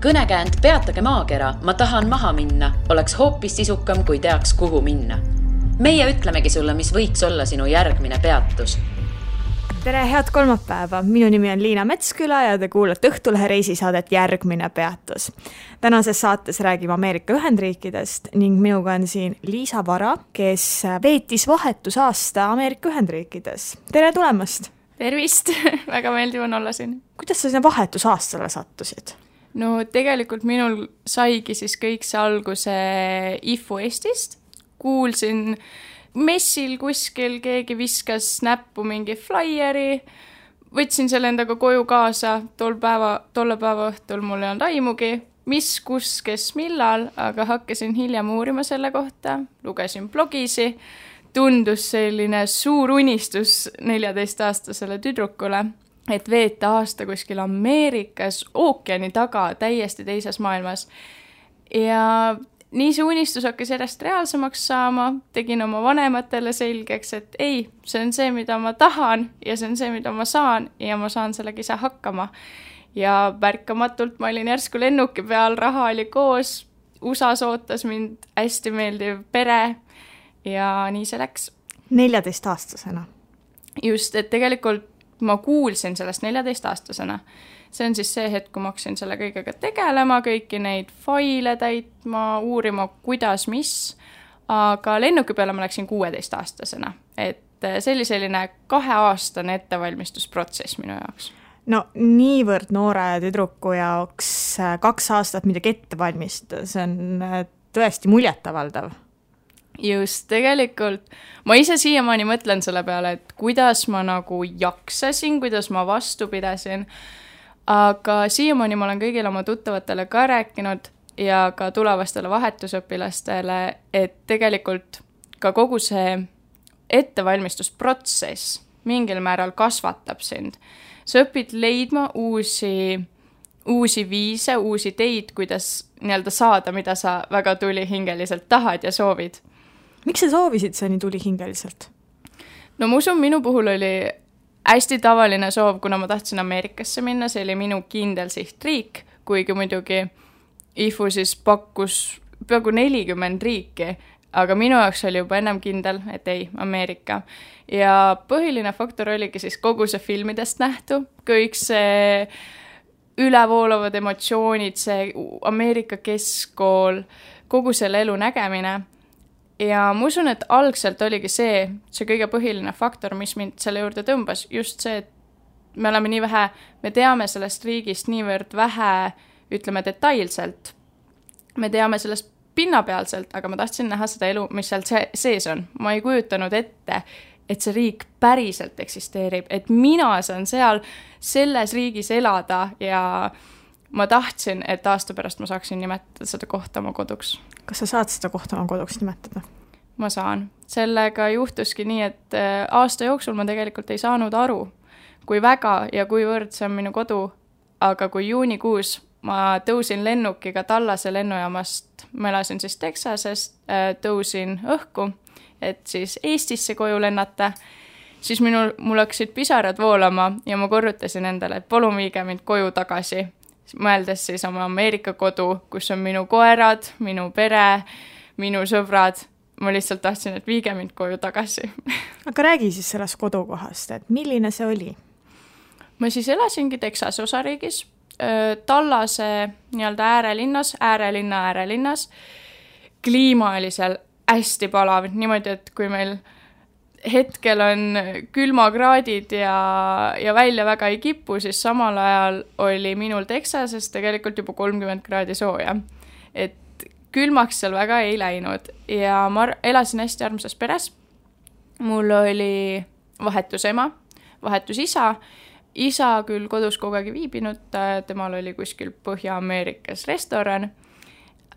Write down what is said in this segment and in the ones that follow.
Kõnekäänd Peatage maakera, ma tahan maha minna, oleks hoopis sisukam, kui teaks, kuhu minna. Meie ütlemegi sulle, mis võiks olla sinu järgmine peatus. Tere, head kolmapäeva! Minu nimi on Liina Metsküla ja te kuulate Õhtulehe reisisaadet Järgmine peatus. Tänases saates räägime Ameerika Ühendriikidest ning minuga on siin Liisa Vara, kes veetis vahetusaasta Ameerika Ühendriikides. Tere tulemast! Tervist! Väga meeldiv on olla siin. Kuidas sa sinna vahetusaastale sattusid? No tegelikult minul saigi siis kõik see alguse IFU Eestist. Kuulsin messil kuskil, keegi viskas näppu mingi flyeri, võtsin selle endaga koju kaasa, tolle päeva õhtul mul ei olnud aimugi, mis, kus, kes, millal, aga hakkasin hiljem uurima selle kohta, lugesin blogisi, tundus selline suur unistus 14-aastasele tüdrukule, et veeta aasta kuskil Ameerikas, ookeani taga, täiesti teises maailmas. Ja nii see unistus hakkas järjest reaalsemaks saama, tegin oma vanematele selgeks, et ei, see on see, mida ma tahan ja see on see, mida ma saan ja ma saan sellega ise hakkama. Ja märkamatult ma olin järsku lennuki peal, raha oli koos, USAs ootas mind hästi meeldiv pere ja nii see läks. 14-aastasena? Just, et tegelikult ma kuulsin sellest 14-aastasena. See on siis see hetk, kui ma hakkasin selle kõigega tegelema, kõiki neid faile täitma, uurima, kuidas, mis. Aga lennuki peale ma läksin 16-aastasena. Et see oli selline 2-aastane ettevalmistusprotsess minu jaoks. No niivõrd noore tüdruku jaoks 2 aastat midagi ette valmistada, see on tõesti muljetavaldav. Just, tegelikult ma ise siiamaani mõtlen selle peale, et kuidas ma nagu jaksasin, kuidas ma vastu pidasin, aga siiamaani ma olen kõigile oma tuttavatele ka rääkinud ja ka tulevastele vahetusõpilastele, et tegelikult ka kogu see ettevalmistusprotsess mingil määral kasvatab sind. Sa õpid leidma uusi viise, uusi teid, kuidas nii-öelda saada, mida sa väga tulihingeliselt tahad ja soovid. Miks sa soovisid see nii tulihingeliselt? No ma usun, minu puhul oli hästi tavaline soov, kuna ma tahtsin Ameerikasse minna, see oli minu kindel sihtriik, kuigi muidugi IFU siis pakkus peaaegu 40 riiki, aga minu jaoks oli juba ennem kindel, et ei, Ameerika. Ja põhiline faktor oligi siis kogu see filmidest nähtu, kõik see ülevoolavad emotsioonid, see Ameerika keskkool, kogu selle elu nägemine. Ja ma usun, et algselt oligi see kõige põhiline faktor, mis mind selle juurde tõmbas. Just see, et me oleme nii vähe, me teame sellest riigist niivõrd vähe, ütleme detailselt. Me teame sellest pinnapealselt, aga ma tahtsin näha seda elu, mis seal sees on. Ma ei kujutanud ette, et see riik päriselt eksisteerib, et mina saan seal selles riigis elada ja ma tahtsin, et aasta pärast ma saaksin nimetada seda kohta oma koduks. Kas sa saad seda kohta oma koduks nimetada? Ma saan. Sellega juhtuski nii, et aasta jooksul ma tegelikult ei saanud aru, kui väga ja kuivõrd see on minu kodu, aga kui juunikuus ma tõusin lennukiga Tallase lennujaamast, ma elasin siis Texasest, tõusin õhku, et siis Eestisse koju lennata, siis mul hakkasid pisarad voolama ja ma korrutasin endale, et palun viige mind koju tagasi. Mõeldes siis oma Ameerika kodu, kus on minu koerad, minu pere, minu sõbrad. Ma lihtsalt tahtsin, et viige mind koju tagasi. Aga räägi siis sellest kodukohast, et milline see oli? Ma siis elasingi Texase osariigis, Tallase nii-öelda äärelinnas. Kliima oli seal hästi palav, niimoodi, et kui meil hetkel on külmakraadid ja välja väga ei kipu, siis samal ajal oli minul Texases tegelikult juba 30 kraadi sooja. Et külmaks seal väga ei läinud ja ma elasin hästi armsas peres. Mul oli vahetusema, vahetusisa. Isa küll kodus kogu aeg viibinud, temal oli kuskil Põhja-Ameerikas restoran.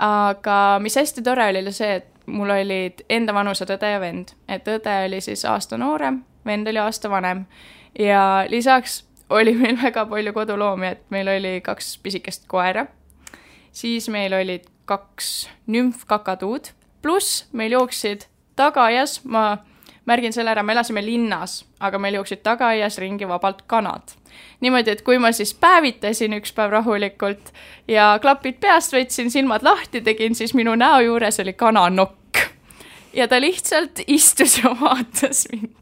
Aga mis hästi tore oli see, et mul olid enda vanused õde ja vend. Et õde oli siis aasta noorem, vend oli aasta vanem. Ja lisaks oli meil väga palju koduloomi, et meil oli 2 pisikest koera. Siis meil olid 2 nümfkakatuud. Plus meil jooksid tagajas, ma märgin selle ära, me elasime linnas, aga meil jooksid tagaaias ringi vabalt kanad. Niimoodi, et kui ma siis päevitasin üks päev rahulikult ja klapid peast võtsin, silmad lahti tegin, siis minu näo juures oli kananokk. Ja ta lihtsalt istus ja vaatas mind.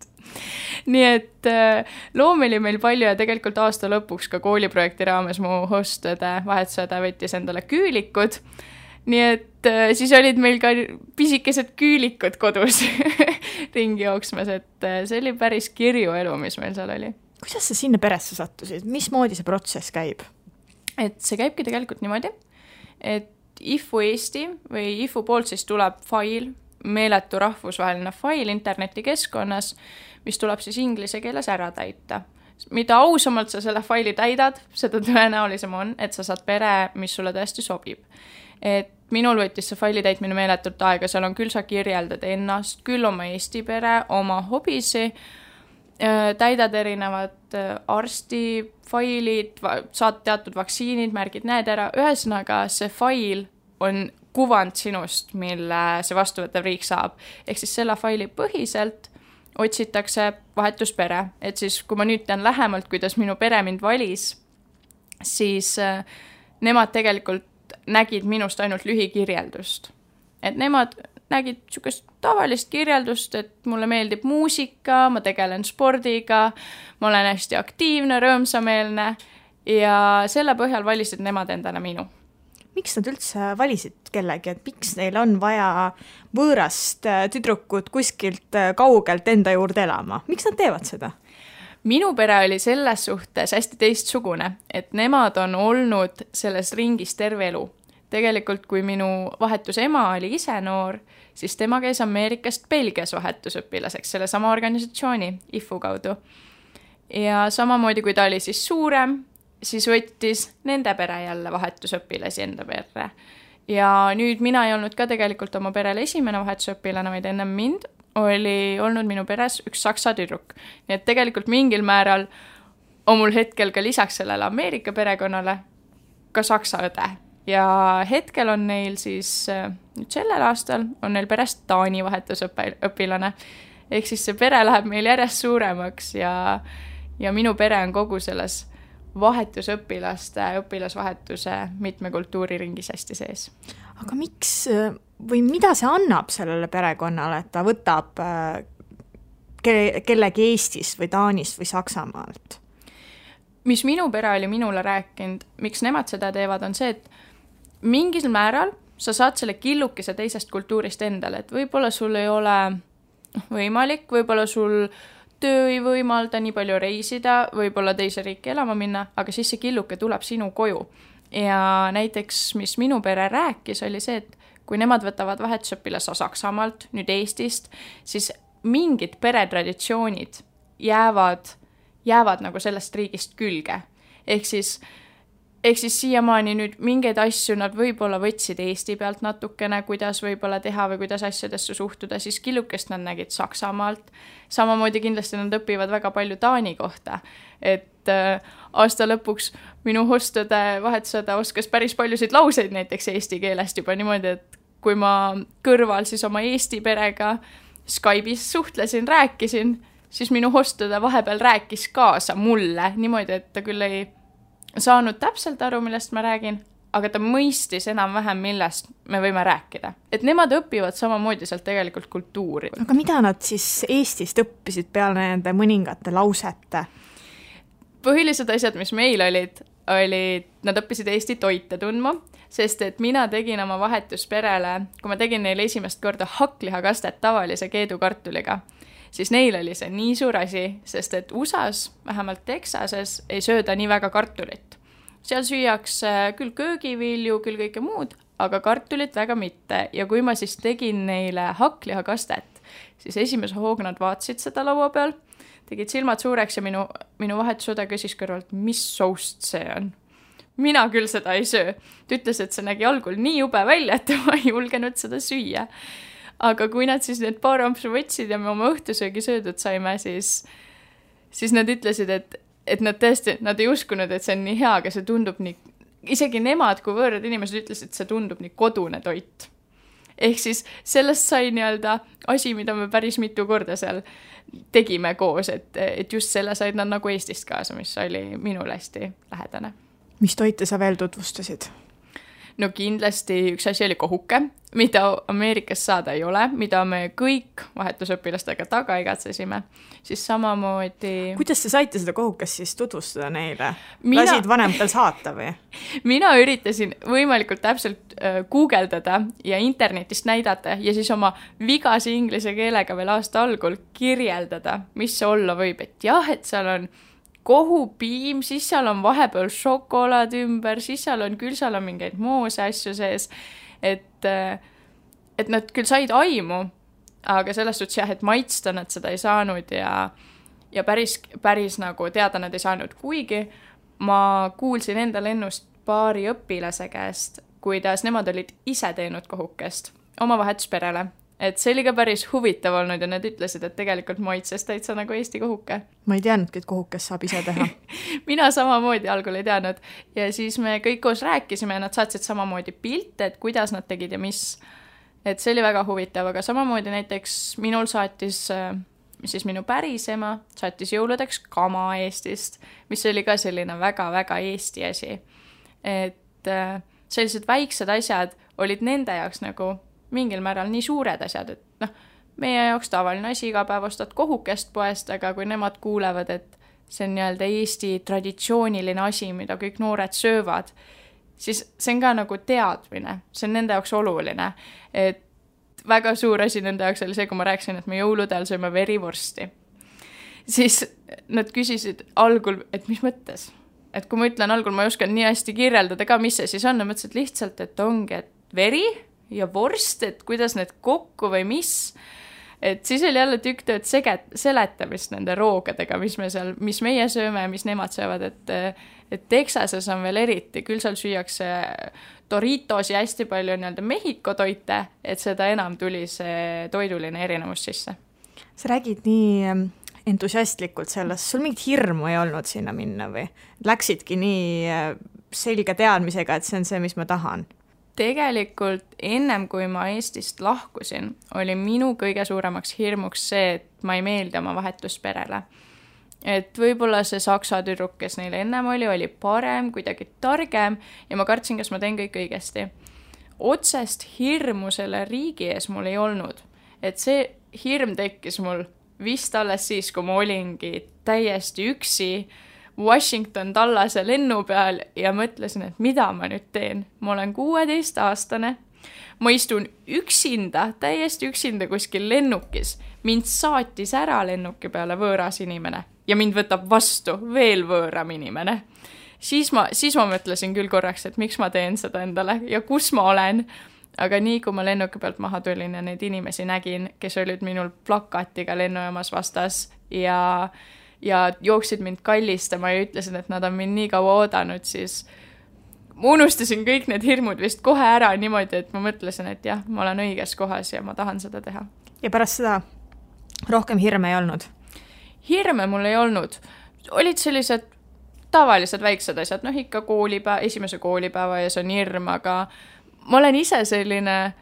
Nii et loomi oli meil palju ja tegelikult aasta lõpuks ka kooliprojekti raames mu hostõde, vahetusõde võttis endale küülikud. Nii et siis olid meil ka pisikesed küülikud kodus ringi jooksmas, et see oli päris kirju elu, mis meil seal oli. Kuidas sa sinna peresse sattusid? Mismoodi see protsess käib? Et see käibki tegelikult niimoodi, et IFU Eesti või IFU poolt siis tuleb fail, meeletu rahvusvaheline fail internetikeskkonnas, mis tuleb siis inglise keeles ära täita. Mida ausamalt sa selle faili täidad, seda tõenäolisem on, et sa saad pere, mis sulle tõesti sobib. Et minul võttis see faili täitmine meeletult aega, seal on küll sa kirjeldad ennast, küll oma Eesti pere, oma hobisi, täidad erinevad arstifailid, saad teatud vaktsiinid, märgid need ära. Ühesõnaga, see fail on kuvand sinust, mille see vastuvõtav riik saab. Ehk siis selle faili põhiselt otsitakse vahetuspere. Et siis, kui ma nüüd tean lähemalt, kuidas minu pere mind valis, siis nemad tegelikult nägid minust ainult lühikirjeldust. Et nemad nägid niisugust tavalist kirjeldust, et mulle meeldib muusika, ma tegelen spordiga, ma olen hästi aktiivne, rõõmsameelne ja selle põhjal valisid nemad endale minu. Miks nad üldse valisid kellegi, et miks neil on vaja võõrast tüdrukut kuskilt kaugelt enda juurde elama? Miks nad teevad seda? Minu pere oli selles suhtes hästi teistsugune, et nemad on olnud selles ringis terve elu. Tegelikult, kui minu vahetus ema oli ise noor, siis tema käis Ameerikast Belgias vahetusõpilaseks selle sama organisatsiooni IFU kaudu. Ja samamoodi, kui ta oli siis suurem, siis võttis nende pere jälle vahetusõpilasi enda perre. Ja nüüd mina ei olnud ka tegelikult oma perele esimene vahetusõpilane, vaid ennem mind oli olnud minu peres üks saksa tüdruk. Nii et tegelikult mingil määral on mul hetkel ka lisaks sellele Ameerika perekonnale ka saksa õde. Ja hetkel on neil siis, nüüd sellel aastal on neil perest Taani vahetusõpilane. Ehk siis see pere läheb meil järjest suuremaks ja minu pere on kogu selles õpilasvahetuse mitme kultuuriringis hästi sees. Aga miks või mida see annab sellele perekonnale, et ta võtab kellegi Eestist või Taanist või Saksamaalt? Mis minu pere oli minule rääkinud, miks nemad seda teevad, on see, et mingil määral sa saad selle killukese teisest kultuurist endale, et võib-olla sul ei ole võimalik, võib-olla sul töö ei võimalda nii palju reisida, võib-olla teise riiki elama minna, aga siis see killuke tuleb sinu koju. Ja näiteks, mis minu pere rääkis, oli see, et kui nemad võtavad vahetusõpilase Saksamaalt, nüüd Eestist, siis mingid peretraditsioonid jäävad nagu sellest riigist külge. Ehk siis siiamaani nüüd mingeid asju nad võib-olla võtsid Eesti pealt natukene, kuidas võib-olla teha või kuidas asjadesse suhtuda, siis killukest nad nägid Saksamaalt. Samamoodi kindlasti nad õpivad väga palju Taani kohta, et aasta lõpuks minu hostõde, vahetusõde oskas päris paljusid lauseid näiteks eesti keelest juba niimoodi, et kui ma kõrval siis oma Eesti perega Skype'is suhtlesin, rääkisin, siis minu hostõde vahepeal rääkis kaasa mulle niimoodi, et ta küll ei saanud täpselt aru, millest ma räägin, aga ta mõistis enam-vähem, millest me võime rääkida. Et nemad õpivad samamoodi sealt tegelikult kultuuri. Aga mida nad siis Eestist õppisid peale nende mõningate lausete? Põhilised asjad, mis meil olid, nad õppisid Eesti toite tundma, sest et mina tegin oma vahetusperele, kui ma tegin neile esimest korda hakklihakastet tavalise keedukartuliga, siis neil oli see nii suur asi, sest et USAs, vähemalt Texases, ei sööda nii väga kartulit. Seal süüakse küll köögivilju, küll kõike muud, aga kartulit väga mitte. Ja kui ma siis tegin neile hakklihakastet, siis esimese hooga nad vaatasid seda laua peal, tegid silmad suureks ja minu vahetusõde küsis kõrvalt, mis soust see on. Mina küll seda ei söö. Ta ütles, et see nägi algul nii jube välja, et ma ei julgenud seda süüa. Aga kui nad siis need paar ampsu võtsid ja me oma õhtusöögi söödud saime, siis nad ütlesid, et nad tõesti, nad ei uskunud, et see on nii hea, aga see tundub nii, isegi nemad, kui võõrad inimesed ütlesid, et see tundub nii kodune toit. Ehk siis sellest sai nii-öelda asi, mida me päris mitu korda seal tegime koos, et just selle said nad nagu Eestist kaasa, mis oli minule hästi lähedane. Mis toite sa veel tutvustasid? No kindlasti üks asi oli kohuke, mida Ameerikas saada ei ole, mida me kõik vahetusõpilastega taga igatsesime. Siis samamoodi... Kuidas te saite seda kohukest siis tutvustada neile? Lasid vanematel saata või? Mina üritasin võimalikult täpselt guugeldada ja internetist näidata ja siis oma vigase inglise keelega veel aasta algul kirjeldada, mis see olla võib. Et jah, et seal on kohupiim, siis seal on vahepeal šokolaad ümber, siis seal on mingeid moose asju sees, et nad küll said aimu, aga selles suhtes jah, et maitsta nad seda ei saanud ja päris nagu teada nad ei saanud, kuigi ma kuulsin enda lennust paari õpilase käest, kuidas nemad olid ise teinud kohukest oma vahetusperele. Et see oli ka päris huvitav olnud ja nad ütlesid, et tegelikult maitses täitsa nagu Eesti kohuke. Ma ei teadnudki, et kohukest saab ise teha. Mina samamoodi algul ei teadnud ja siis me kõik koos rääkisime ja nad saatsid samamoodi pilte, et kuidas nad tegid ja mis. Et see oli väga huvitav, aga samamoodi näiteks minul saatis siis minu päris ema, saatis jõuludeks kama Eestist, mis oli ka selline väga-väga Eesti asi. Et sellised väiksed asjad olid nende jaoks nagu mingil määral nii suured asjad, et meie jaoks tavaline asi iga päev ostad kohukest poest, aga kui nemad kuulevad, et see on nii-öelda Eesti traditsiooniline asi, mida kõik noored söövad, siis see on ka nagu teadmine, see on nende jaoks oluline. Et väga suur asi nende jaoks oli see, kui ma rääkisin, et me jõuludel sööme verivorsti. Siis nad küsisid algul, et mis mõttes? Et kui ma ütlen algul, ma ei oskan nii hästi kirjeldada ka, mis see siis on, ja mõtlesin lihtsalt, et ongi, et veri ja vorst, et kuidas need kokku või mis, et siis oli jälle tükk tööd seletamist nende roogadega, mis meie sööme ja mis nemad söövad, et Texases on veel eriti, küll seal süüakse Doritos ja hästi palju nii-öelda Mehhiko toite, et seda enam tuli see toiduline erinevus sisse. Sa räägid nii entusiastlikult sellest, sul mingit hirmu ei olnud sinna minna või? Läksidki nii selge teadmisega, et see on see, mis ma tahan? Tegelikult ennem kui ma Eestist lahkusin, oli minu kõige suuremaks hirmuks see, et ma ei meeldi oma vahetusperele. Et võib-olla see saksa tüdruk, kes neil ennem oli parem, kuidagi targem ja ma kartsin, kas ma teen kõik õigesti. Otsest hirmu selle riigi ees mul ei olnud. Et see hirm tekkis mul vist alles siis, kui ma olingi täiesti üksi Washington Dallase lennu peal ja mõtlesin, et mida ma nüüd teen. Ma olen 16-aastane, ma istun üksinda, täiesti üksinda kuskil lennukis. Mind saatis ära lennuki peale võõras inimene ja mind võtab vastu veel võõram inimene. Siis ma mõtlesin küll korraks, et miks ma teen seda endale ja kus ma olen. Aga nii, kui ma lennuki pealt maha tulin ja neid inimesi nägin, kes olid minul plakatiga lennujaamas vastas ja jooksid mind kallistama ja ütlesin, et nad on mind nii kaua oodanud, siis ma unustasin kõik need hirmud vist kohe ära niimoodi, et ma mõtlesin, et jah, ma olen õiges kohas ja ma tahan seda teha. Ja pärast seda rohkem hirme ei olnud? Hirme mul ei olnud. Olid sellised tavalised väiksed asjad, ikka esimese koolipäeva ja see on hirm, aga ma olen ise selline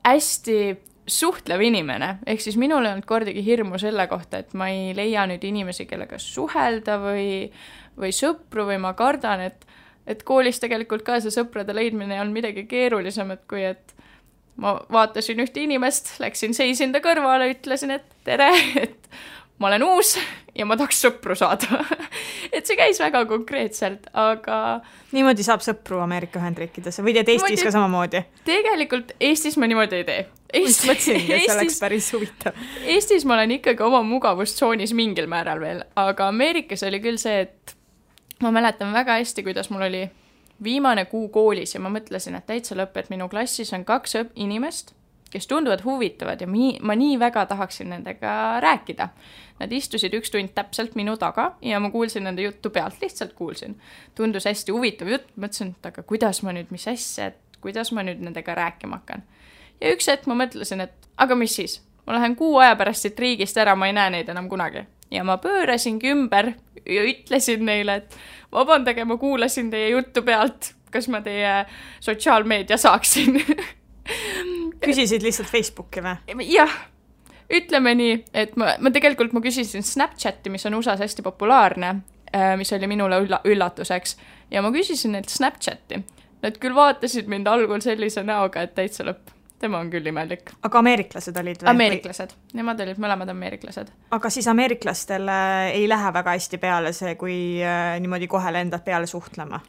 hästi suhtlev inimene, ehk siis minul ei olnud kordagi hirmu selle kohta, et ma ei leia nüüd inimesi, kellega suhelda või sõpru või ma kardan, et koolis tegelikult ka see sõprade leidmine ei olnud midagi keerulisemat, kui et ma vaatasin ühte inimest, läksin seisin ta kõrvale, ütlesin, et tere, et ma olen uus ja ma tahaks sõpru saada. Et see käis väga konkreetselt, aga... Niimoodi saab sõpru Ameerika Ühendriikides või teed Eestis ka samamoodi? Tegelikult Eestis ma niimoodi ei tee. Mõtlesingi, et see oleks päris huvitav. Eestis ma olen ikkagi oma mugavustsoonis mingil määral veel, aga Ameerikas oli küll see, et ma mäletan väga hästi, kuidas mul oli viimane kuu koolis ja ma mõtlesin, et täitsa lõpp, et minu klassis on 2 inimest, kes tunduvad huvitavad ja ma nii väga tahaksin nendega rääkida. Nad istusid 1 tund täpselt minu taga ja ma kuulsin nende juttu pealt, lihtsalt kuulsin. Tundus hästi huvitav jutt, mõtlesin, et aga kuidas ma nüüd, mis asja, et kuidas ma nüüd nendega rääkima hakkan. Ja üks hetk ma mõtlesin, et aga mis siis? Ma lähen 6 aja pärast siit riigist ära, ma ei näe neid enam kunagi. Ja ma pöörasingi ümber ja ütlesin neile, et vabandage, ma kuulasin teie juttu pealt, kas ma teie sotsiaalmeedia saaksin. küsisid lihtsalt Facebooki või? Jah, ütleme nii, et ma küsisin Snapchati, mis on USA's hästi populaarne, mis oli minule üllatuseks, ja ma küsisin neilt Snapchati. Nad küll vaatasid mind algul sellise näoga, et täitsa lõpp. Tema on küll imelik. Aga ameeriklased olid või? Ameeriklased. Nemad olid mõlemad ameeriklased. Aga siis ameeriklastele ei lähe väga hästi peale see, kui niimoodi kohe lendad peale suhtlema?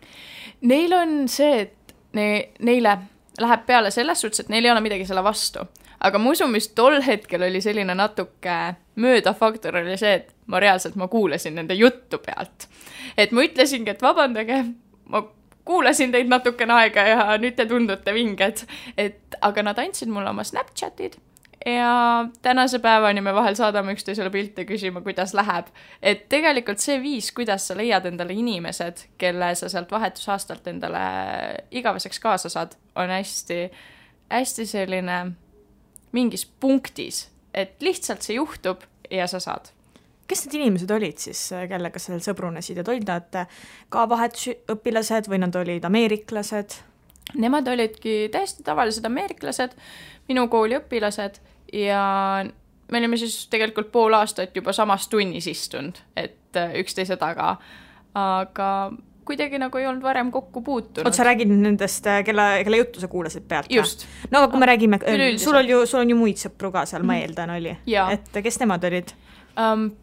Neil on see, et neile läheb peale selles suhtes, et neil ei ole midagi selle vastu. Aga ma usun, mis tol hetkel oli selline natuke möödafaktor oli see, et ma kuulasin nende juttu pealt. Et ma ütlesingi, et vabandage, ma kuulasin teid natukene aega ja nüüd te tundute vinged. Aga nad andsid mulle oma Snapchatid ja tänase päevani me vahel saadame üksteisele pilte küsima, kuidas läheb. Et tegelikult see viis, kuidas sa leiad endale inimesed, kelle sa sealt vahetusaastalt endale igaveseks kaasa saad, on hästi selline mingis punktis, et lihtsalt see juhtub ja sa saad. Kes need inimesed olid siis, kellega sa sõbrunesid, et olid nad ka vahetusõpilased või nad olid ameeriklased? Nemad olidki täiesti tavalised ameeriklased, minu kooli õpilased ja me olime siis tegelikult pool aastat juba samas tunnis istunud, et üksteise taga, aga kuidagi nagu ei olnud varem kokku puutunud. Sa räägid nendest, kelle juttu sa kuulasid pealt? Just. No aga kui me räägime, sul on ju muid sõpru ka seal, ma eeldan oli. Et kes nemad olid?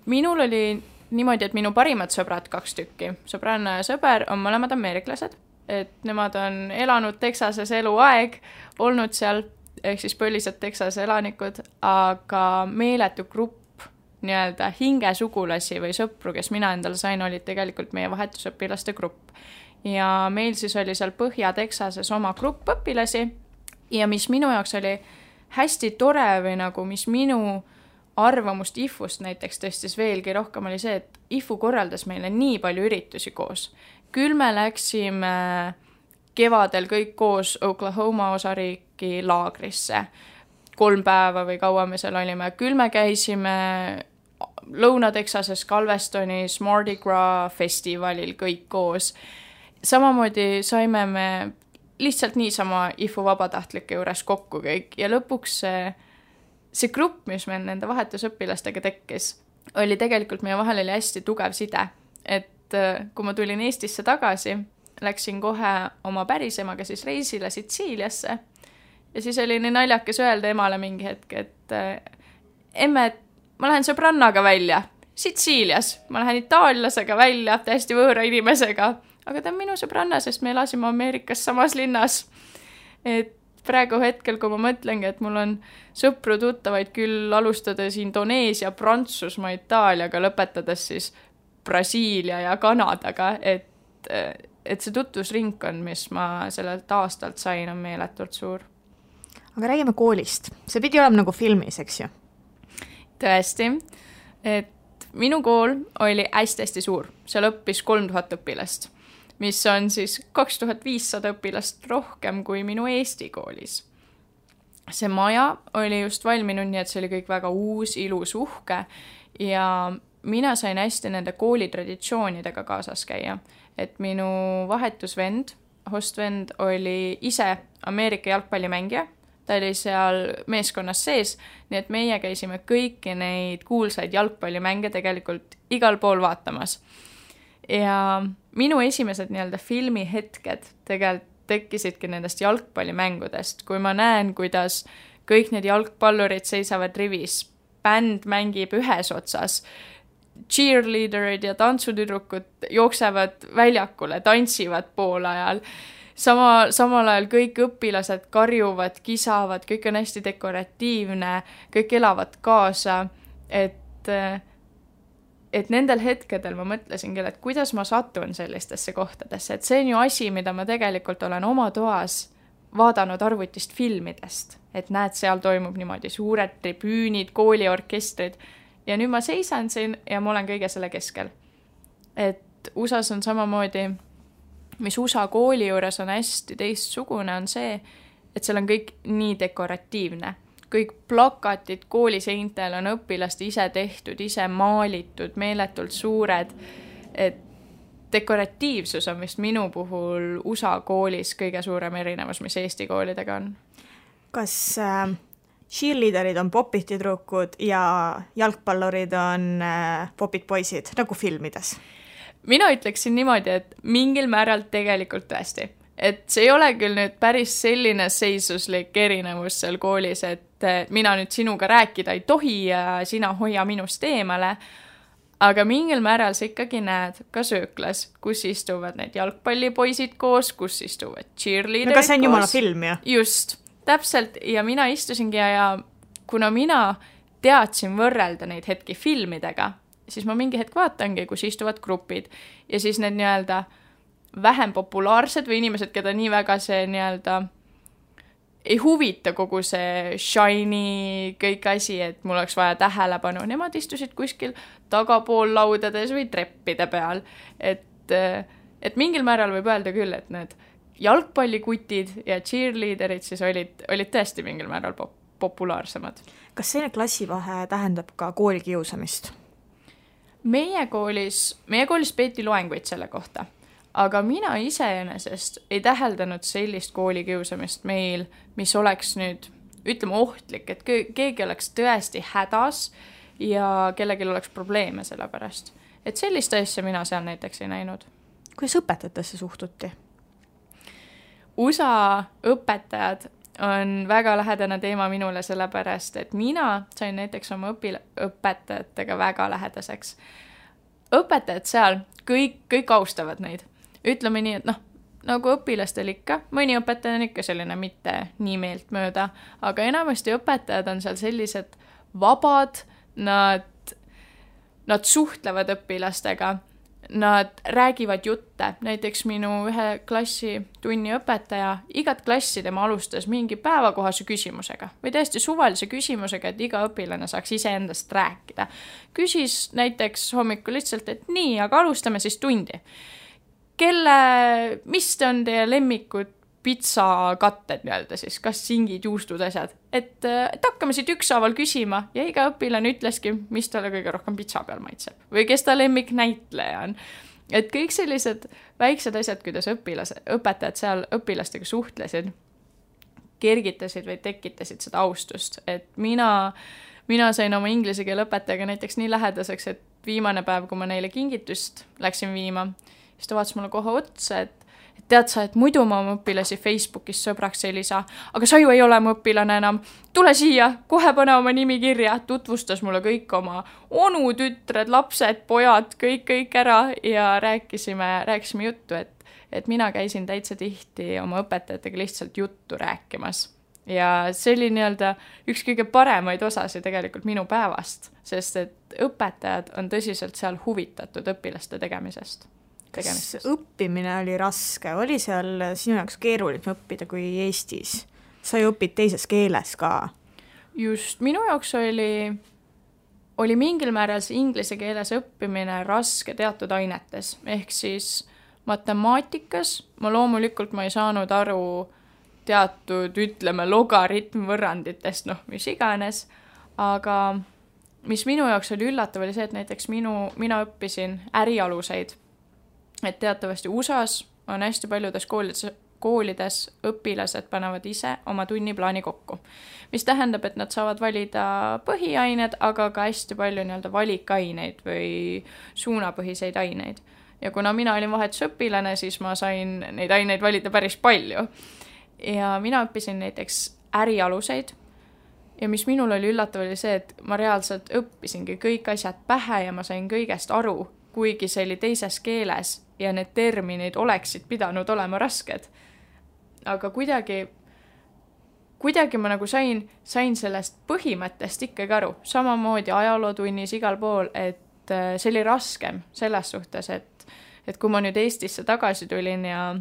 Minul oli niimoodi, et minu parimad sõbrad 2 tükki, sõbranna ja sõber on mõlemad ameeriklased, et nemad on elanud Texases eluaeg, olnud seal, ehk siis põlised Texase elanikud, aga meeletu grupp nii-öelda hingesugulasi või sõpru, kes mina endale sain, olid tegelikult meie vahetusõpilaste grupp. Ja meil siis oli seal Põhja-Texases oma grupp õpilasi ja mis minu jaoks oli hästi tore või nagu mis minu arvamust IFU-st näiteks tõstis veelgi rohkem oli see, et IFU korraldas meile nii palju üritusi koos. Küll me läksime kevadel kõik koos Oklahoma osariiki laagrisse. 3 päeva või kaua me seal olime. Küll me käisime Lõuna-Texases Galvestonis Mardi Gras festivalil kõik koos. Samamoodi saime me lihtsalt niisama IFU vabatahtlike juures kokku kõik ja lõpuks see grupp, mis meil nende vahetusõpilastega tekkis, oli tegelikult meie vahel oli hästi tugev side. Et kui ma tulin Eestisse tagasi, läksin kohe oma pärisemaga siis reisile Sitsiiliasse ja siis oli nii naljakas öelda emale mingi hetk, et emme, ma lähen sõbrannaga välja Sitsiilias, ma lähen itaallasega välja, täiesti võõra inimesega, aga ta on minu sõbranna, sest me elasime Ameerikas samas linnas. Et praegu hetkel, kui ma mõtlengi, et mul on sõpru tuttavaid küll alustades Indoneesia, Prantsusmaa, Itaaliaga, lõpetades siis Brasiilia ja Kanadaga, et see tutvusringkond, mis ma sellelt aastalt sain, on meeletult suur. Aga räägime koolist. See pidi olema nagu filmis, eks ju? Tõesti, et minu kool oli hästi suur. Seal õppis 3000 õpilast. Mis on siis 2500 õpilast rohkem kui minu Eesti koolis. See maja oli just valminud, nii et see oli kõik väga uus, ilus, uhke ja mina sain hästi nende kooli traditsioonidega kaasas käia. Et minu vahetusvend, hostvend oli ise Ameerika jalgpallimängija, ta oli seal meeskonnas sees, nii et meie käisime kõiki neid kuulsaid jalgpallimänge tegelikult igal pool vaatamas. Ja minu esimesed nii-öelda filmihetked tegelikult tekkisidki nendest jalgpallimängudest, kui ma näen, kuidas kõik need jalgpallurid seisavad rivis, bänd mängib ühes otsas, cheerleaderid ja tantsutüdrukud jooksevad väljakule, tantsivad pool ajal, samal ajal kõik õpilased karjuvad, kisavad, kõik on hästi dekoratiivne, kõik elavad kaasa, et nendel hetkedel ma mõtlesingi, et kuidas ma satun sellistesse kohtadesse, et see on ju asi, mida ma tegelikult olen oma toas vaadanud arvutist filmidest, et näed, seal toimub niimoodi suured tribüünid, kooliorkestrid ja nüüd ma seisan siin ja ma olen kõige selle keskel. Et USAs on samamoodi, mis USA kooli juures on hästi teistsugune, on see, et seal on kõik nii dekoratiivne. Kõik plakatid kooliseintel on õpilaste ise tehtud, ise maalitud, meeletult suured. Et dekoratiivsus on vist minu puhul USA koolis kõige suurem erinevus, mis Eesti koolidega on. Kas cheerleaderid on popid tüdrukud ja jalgpallurid on popid poisid, nagu filmides? Mina ütleksin niimoodi, et mingil määral tegelikult tõesti. Et see ei ole küll nüüd päris selline seisuslik erinevus seal koolis, et mina nüüd sinuga rääkida ei tohi ja sina hoia minust eemale, aga mingil määral sa ikkagi näed ka sööklas, kus istuvad need jalgpallipoisid koos, kus istuvad cheerleaderid koos. No kas see on jumala film, ju? Just, täpselt. Ja mina istusingi ja kuna mina teadsin võrrelda neid hetki filmidega, siis ma mingi hetk vaatangi, kus istuvad grupid ja siis need nii-öelda vähem populaarsed või inimesed, keda nii väga see nii-öelda ei huvita kogu see shiny kõik asi, et mul oleks vaja tähelepanu. Nemad istusid kuskil tagapool laudades või treppide peal. Et mingil määral võib öelda küll, et need jalgpallikutid ja cheerleaderid siis olid tõesti mingil määral populaarsemad. Kas selline klassivahe tähendab ka koolikiusamist? Meie koolis peeti loenguid selle kohta. Aga mina iseenesest ei täheldanud sellist koolikiusamist meil, mis oleks nüüd, ütleme, ohtlik, et keegi oleks tõesti hädas ja kellelgi oleks probleeme selle pärast. Et sellist asja mina seal näiteks ei näinud. Kuidas õpetajatesse suhtuti? USA õpetajad on väga lähedane teema minule selle pärast, et mina sain näiteks oma õpetajatega väga lähedaseks. Õpetajad seal, kõik austavad neid. Ütleme nii, et nagu õpilastel ikka, mõni õpetaja on ikka selline mitte nii meelt mööda, aga enamasti õpetajad on seal sellised vabad, nad suhtlevad õpilastega, nad räägivad jutte, näiteks minu ühe klassi tunni õpetaja, igat klassi tema alustas mingi päevakohase küsimusega või täiesti suvalise küsimusega, et iga õpilane saaks iseendast rääkida. Küsis näiteks hommikul lihtsalt, et nii, aga alustame siis tundi. Mis on teie lemmikud pitsakatted nii-öelda siis, kas singid, juustud, asjad? Et hakkame siit ükshaaval küsima ja iga õpilane ütleski, mis talle kõige rohkem pitsa peal maitseb või kes ta lemmik näitleja on. Et kõik sellised väiksed asjad, kuidas õpetajad seal õpilastega suhtlesid, kergitasid või tekitasid seda austust. Et mina sain oma inglise keele õpetajaga näiteks nii lähedaseks, et viimane päev, kui ma neile kingitust läksin viima, siis ta vaatas mulle kohe otsa, et tead sa, et muidu ma oma õpilasi Facebookis sõbraks ei lisa, aga sa ju ei ole mu õpilane enam. Tule siia, kohe pane oma nimi kirja. Tutvustas mulle kõik oma onu, tütred, lapsed, pojad, kõik ära ja rääkisime juttu, et mina käisin täitsa tihti oma õpetajatega lihtsalt juttu rääkimas. Ja see oli nii-öelda üks kõige paremaid osasi tegelikult minu päevast, sest et õpetajad on tõsiselt seal huvitatud õpilaste tegemisest. Kas õppimine oli raske? Oli seal sinu jaoks keeruline õppida kui Eestis? Sa ju õpid teises keeles ka. Just, minu jaoks oli mingil määral see inglise keeles õppimine raske teatud ainetes. Ehk siis matemaatikas ma loomulikult ma ei saanud aru teatud, ütleme, logaritmvõrranditest, mis iganes. Aga mis minu jaoks oli üllatav, oli see, et näiteks mina õppisin ärialuseid. Et teatavasti USAs on hästi paljudes koolides õpilased panevad ise oma tunniplaani kokku. Mis tähendab, et nad saavad valida põhiained, aga ka hästi palju nii-öelda valikaineid või suunapõhiseid aineid. Ja kuna mina olin vahetusõpilane, siis ma sain neid aineid valida päris palju. Ja mina õppisin näiteks ärialuseid. Ja mis minul oli üllatav oli see, et ma reaalselt õppisingi kõik asjad pähe ja ma sain kõigest aru, kuigi see oli teises keeles ja need terminid oleksid pidanud olema rasked. Aga kuidagi ma nagu sain sellest põhimõttest ikkagi aru. Samamoodi ajalootunnis igal pool, et see oli raskem selles suhtes, et kui ma nüüd Eestisse tagasi tulin ja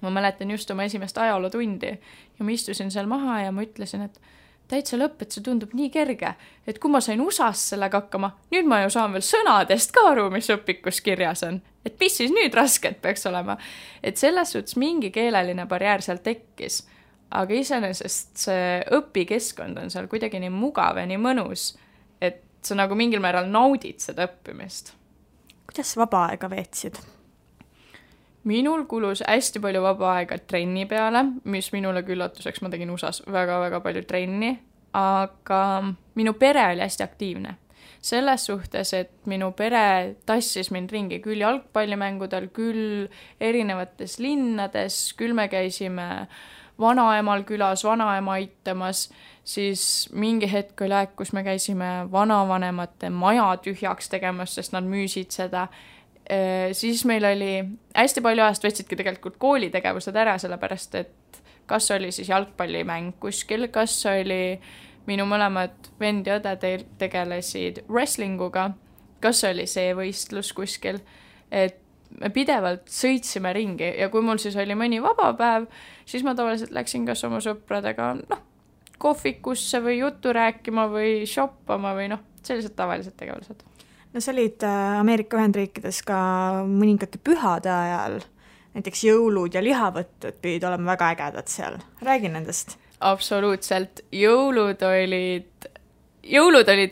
ma mäletan just oma esimest ajalootundi ja ma istusin seal maha ja ma ütlesin, et täitsa lõpp, et see tundub nii kerge, et kui ma sain USAs sellega hakkama, nüüd ma ju saan veel sõnadest ka aru, mis õpikus kirjas on. Et mis siis nüüd rasket peaks olema. Et selles suhtes mingi keeleline barjäär seal tekkis, aga iseenesest see õpikeskkond on seal kuidagi nii mugav ja nii mõnus, et sa nagu mingil määral naudid seda õppimist. Kuidas vaba aega veetsid? minul kulus hästi palju vaba aega trenni peale, mis minule küllatuseks, ma tegin USAs väga-väga palju trenni, aga minu pere oli hästi aktiivne. Selles suhtes, et minu pere tassis mind ringi küll jalgpallimängudel, küll erinevates linnades, küll me käisime vanaemal külas, vanaema aitamas, siis mingi hetk oli aeg, kus me käisime vanavanemate maja tühjaks tegemas, sest nad müüsid seda. Siis meil oli hästi palju ajast võtsidki tegelikult koolitegevused ära, sellepärast et kas oli siis jalgpallimäng kuskil, kas oli minu mõlemad vend ja õde tegelesid wrestlinguga, kas oli see võistlus kuskil, et me pidevalt sõitsime ringi ja kui mul siis oli mõni vaba päev, siis ma tavaliselt läksin kas oma sõpradega kohvikusse või juttu rääkima või shoppama või sellised tavalised tegevused. No sa olid Ameerika Ühendriikides ka mõningate pühade ajal, näiteks jõulud ja lihavõttud pidid olema väga ägedad seal. Räägi nendest. Absoluutselt. Jõulud olid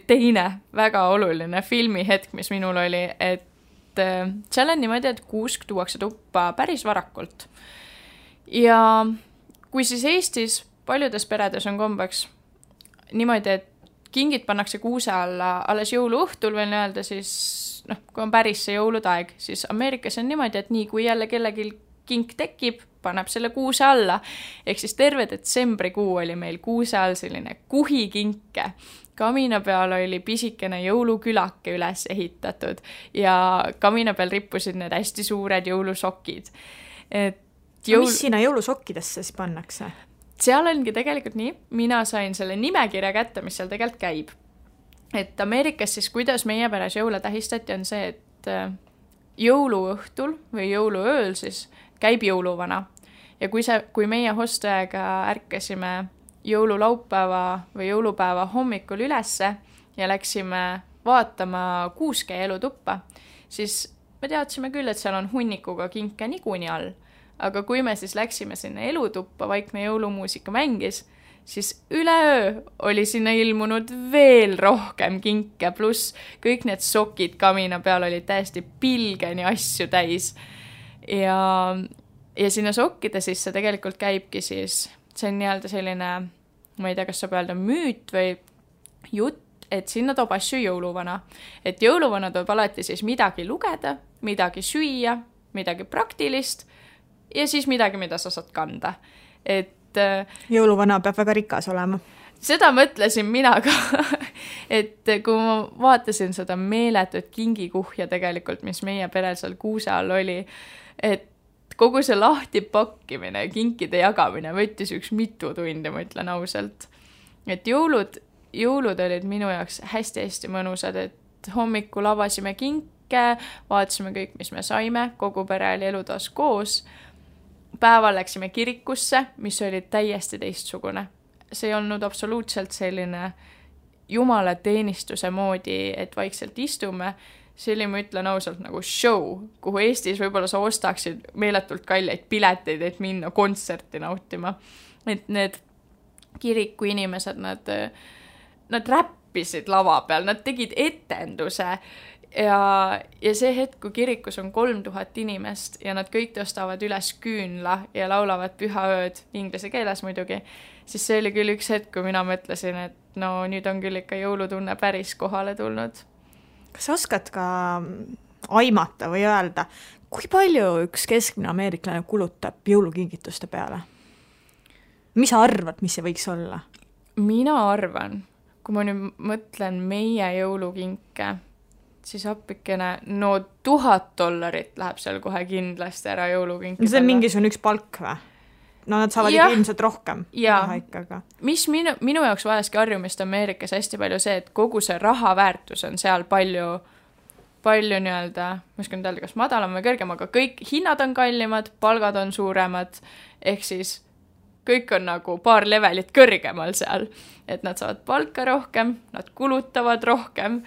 teine väga oluline filmihetk, mis minul oli, et seal on niimoodi, et kuusk tuuakse tuppa päris varakult. Ja kui siis Eestis paljudes peredes on kombeks niimoodi, et kingid pannakse kuuse alla alles jõuluõhtul veel öelda, siis kui on päris see jõuludaeg, siis Ameerikas on niimoodi, et nii kui jälle kellelgi kink tekib, paneb selle kuuse alla. Ehk siis terve detsembrikuu oli meil kuuse all selline kuhikinke. Kamina peal oli pisikene jõulukülake üles ehitatud ja kamina peal rippusid need hästi suured jõulusokid. Mis sinna jõulusokkidesse siis pannakse? Seal ongi tegelikult nii, mina sain selle nimekirja kätte, mis seal tegelikult käib. Et Ameerikas siis, kuidas meie peres jõule tähistati, on see, et jõuluõhtul või jõuluööl siis käib jõuluvana. Ja kui meie hosteaega ärkasime jõululaupäeva või jõulupäeva hommikul ülesse ja läksime vaatama kuuske elutuppa, siis me teadsime küll, et seal on hunnikuga kinke niikuinii all. Aga kui me siis läksime sinna elutuppa, vaikne jõulumuusika mängis, siis üleöö oli sinna ilmunud veel rohkem kinke, pluss kõik need sokid kamina peal olid täiesti pilgeni asju täis. Ja sinna sokkide sisse tegelikult käibki siis, see on nii-öelda selline, ma ei tea, kas saab öelda müüt või jutt, et sinna toob asju jõuluvana. Et jõuluvana toob alati siis midagi lugeda, midagi süüa, midagi praktilist, ja siis midagi, mida sa saad kanda. Et jõuluvana peab väga rikas olema. Seda mõtlesin mina ka, et kui ma vaatasin seda meeletut kingikuhja tegelikult, mis meie perel seal kuuse all oli, et kogu see lahti pakkimine ja kinkide jagamine võttis üks mitu tundi, ma ütlen ausalt. Et jõulud olid minu jaoks hästi-hästi mõnusad, et hommikul avasime kinke, vaatasime kõik, mis me saime, kogu pere oli elutoas koos. Päeval läksime kirikusse, mis oli täiesti teistsugune. See ei olnud absoluutselt selline jumala teenistuse moodi, et vaikselt istume. See oli, ma ütlen ausalt, nagu show, kuhu Eestis võib-olla sa ostaksid meeletult kalleid pileteid, et minna kontserti nautima. Et need kiriku inimesed, nad räppisid lava peal, nad tegid etenduse. Ja see hetk, kui kirikus on 3000 inimest ja nad kõik tõstavad üles küünla ja laulavad pühaööd, inglise keeles muidugi, siis see oli küll üks hetk, kui mina mõtlesin, et nüüd on küll ikka jõulutunne päris kohale tulnud. Kas sa oskad ka aimata või öelda, kui palju üks keskmine ameeriklane kulutab jõulukingituste peale? Mis sa arvad, mis see võiks olla? Mina arvan, kui ma nüüd mõtlen meie jõulukinke, siis appikene, $1000 läheb seal kohe kindlasti ära jõulukinki. See on mingisugune üks palk või? Nad saavad ikka ilmselt rohkem. Mis minu jaoks vajaski harjumist Ameerikas hästi palju see, et kogu see rahaväärtus on seal palju nii-öelda, ma oskan öelda, kas madalam või kõrgem, aga kõik hinnad on kallimad, palgad on suuremad, ehk siis kõik on nagu paar levelit kõrgemal seal, et nad saavad palka rohkem, nad kulutavad rohkem,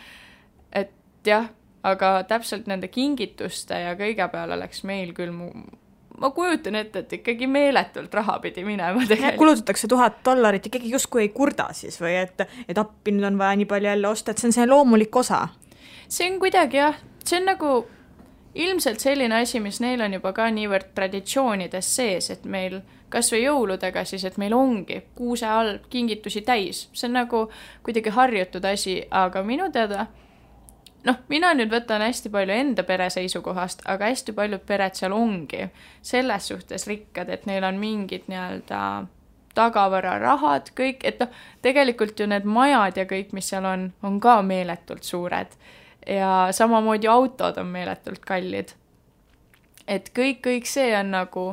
et jah, aga täpselt nende kingituste ja kõige peale läks meil küll, ma kujutan ette, et ikkagi meeletult raha pidi minema tegelikult. Kulutatakse $1000, ikkagi justkui ei kurda siis või et appi nüüd on vaja nii palju jälle osta, et see on see loomulik osa. See on kuidagi jah, see on nagu ilmselt selline asi, mis neil on juba ka niivõrd traditsioonides sees, et meil kas või jõuludega siis, et meil ongi kuuse all kingitusi täis. See on nagu kuidagi harjutud asi, aga minu teada, mina nüüd võtan hästi palju enda pere seisukohast, aga hästi paljud pered seal ongi selles suhtes rikkad, et neil on mingid nii-öelda tagavararahad, kõik, et tegelikult ju need majad ja kõik, mis seal on ka meeletult suured ja samamoodi autod on meeletult kallid. Et kõik see on nagu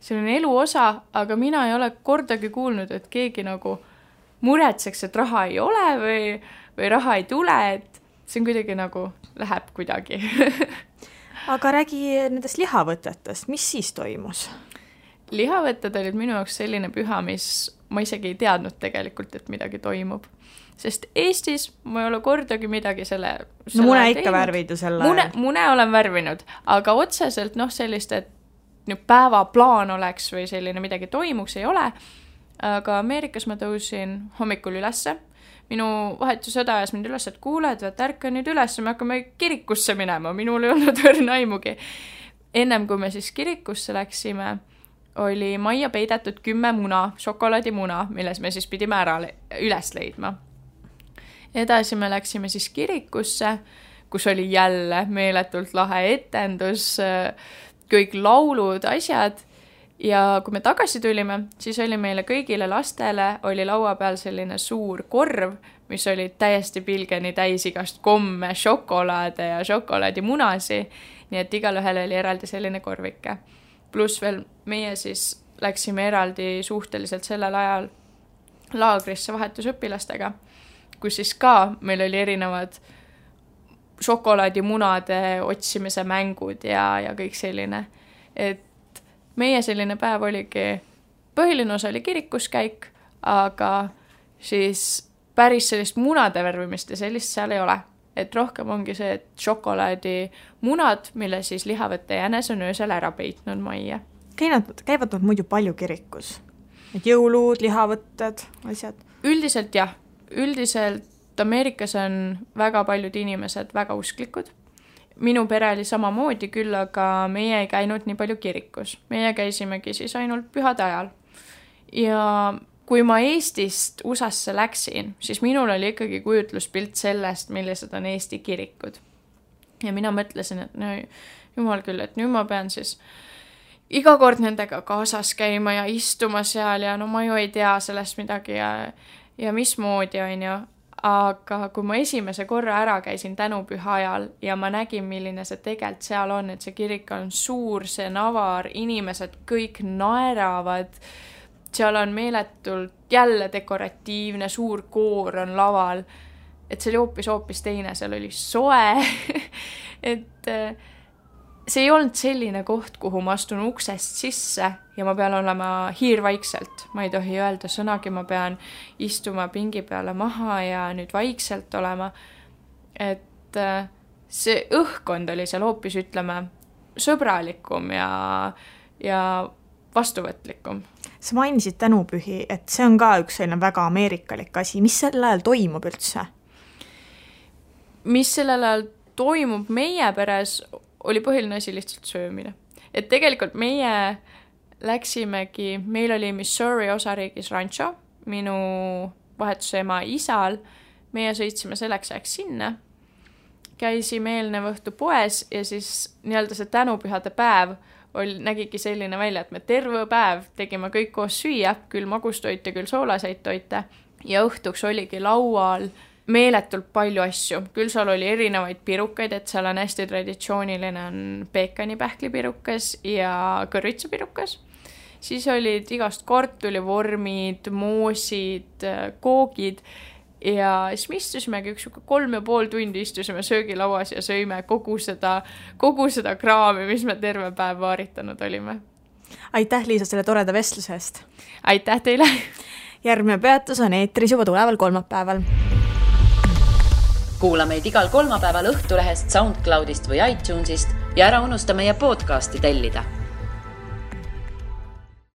selline elu osa, aga mina ei ole kordagi kuulnud, et keegi nagu muretseks, et raha ei ole või raha ei tule, et see on kuidagi nagu läheb kuidagi. Aga räägi nendest lihavõtetest, mis siis toimus? Lihavõtted olid minu jaoks selline püha, mis ma isegi ei teadnud tegelikult, et midagi toimub. Sest Eestis ma ei ole kordagi midagi selle mune ikka värvid ju selle. Mune olen värvinud, aga otseselt sellist, et päevaplaan oleks või selline midagi toimuks, ei ole. Aga Ameerikas ma tõusin hommikul ülesse. Minu vahetusõda ajas mind üles, et kuuled, ärka nüüd üles, me hakkame kirikusse minema. Minul ei olnud õrna aimugi. Ennem kui me siis kirikusse läksime, oli majja peidetud 10 muna, šokolaadimuna, milles me siis pidime ära üles leidma. Edasi me läksime siis kirikusse, kus oli jälle meeletult lahe etendus, kõik laulud, asjad. Ja kui me tagasi tulime, siis oli meile kõigile lastele oli laua peal selline suur korv, mis oli täiesti pilgeni täis igast komme, šokolaade ja šokolaadimunasi. Nii et igal ühel oli eraldi selline korvike. Pluss veel meie siis läksime eraldi suhteliselt sellel ajal laagrisse vahetusõpilastega, kus siis ka meil oli erinevad šokolaadimunade otsimise mängud ja kõik selline. Et meie selline päev oligi, põhiline osa oli kirikuskäik, aga siis päris sellist munade värvimist ja sellist seal ei ole. Et rohkem ongi see, et šokolaadimunad, mille siis lihavõtte jänes on öösel ära peitnud majja. Käivad nad muidu palju kirikus? Et jõulud, lihavõtted, asjad? Üldiselt jah. Üldiselt Ameerikas on väga paljud inimesed väga usklikud. Minu pere oli samamoodi küll, aga meie ei käinud nii palju kirikus. Meie käisimegi siis ainult pühade ajal. Ja kui ma Eestist USAsse läksin, siis minul oli ikkagi kujutluspilt sellest, millised on Eesti kirikud. Ja mina mõtlesin, et jumal küll, et nüüd ma pean siis iga kord nendega kaasas käima ja istuma seal ja ma ju ei tea sellest midagi ja mismoodi on ju. Aga kui ma esimese korra ära käisin tänupüha ajal ja ma nägin, milline see tegelikult seal on, et see kirik on suur, see navar, inimesed kõik naeravad, seal on meeletult jälle dekoratiivne, suur koor on laval, et see oli hoopis teine, seal oli soe, et see ei olnud selline koht, kuhu ma astun uksest sisse ja ma pean olema hiirvaikselt. Ma ei tohi öelda sõnagi, ma pean istuma pingi peale maha ja nüüd vaikselt olema. Et see õhkkond oli seal hoopis, ütleme, sõbralikum ja vastuvõtlikum. Sa mainisid tänupühi, et see on ka üks selline väga ameerikalik asi. Mis sel ajal toimub üldse? Mis sellel ajal toimub meie peres oli põhiline asi lihtsalt söömine. Et tegelikult meie läksimegi, meil oli Missouri osariigis rancho, minu vahetusema isal, meie sõitsime selleks ajaks sinna, käisime eelnev õhtu poes ja siis nii-öelda see tänupühade päev nägigi selline välja, et me terve päev tegime kõik koos süüa, küll magustoite, küll soolaseid toite ja õhtuks oligi laual meeletult palju asju. Küll seal oli erinevaid pirukaid, et seal on hästi traditsiooniline on peekanipähklipirukas ja kõrvitsapirukas. Siis olid igast kartulivormid, moosid, koogid ja siis me istusimegi 3,5 tundi istusime söögilauas ja sõime kogu seda kraami, mis me terve päev vaaritanud olime. Aitäh, Liisa, selle toreda vestluse eest. Aitäh teile! Järgmine peatus on eetris juba tuleval kolmapäeval. Kuula meid igal kolmapäeval Õhtulehest, SoundCloudist või iTunesist ja ära unusta meie podcasti tellida.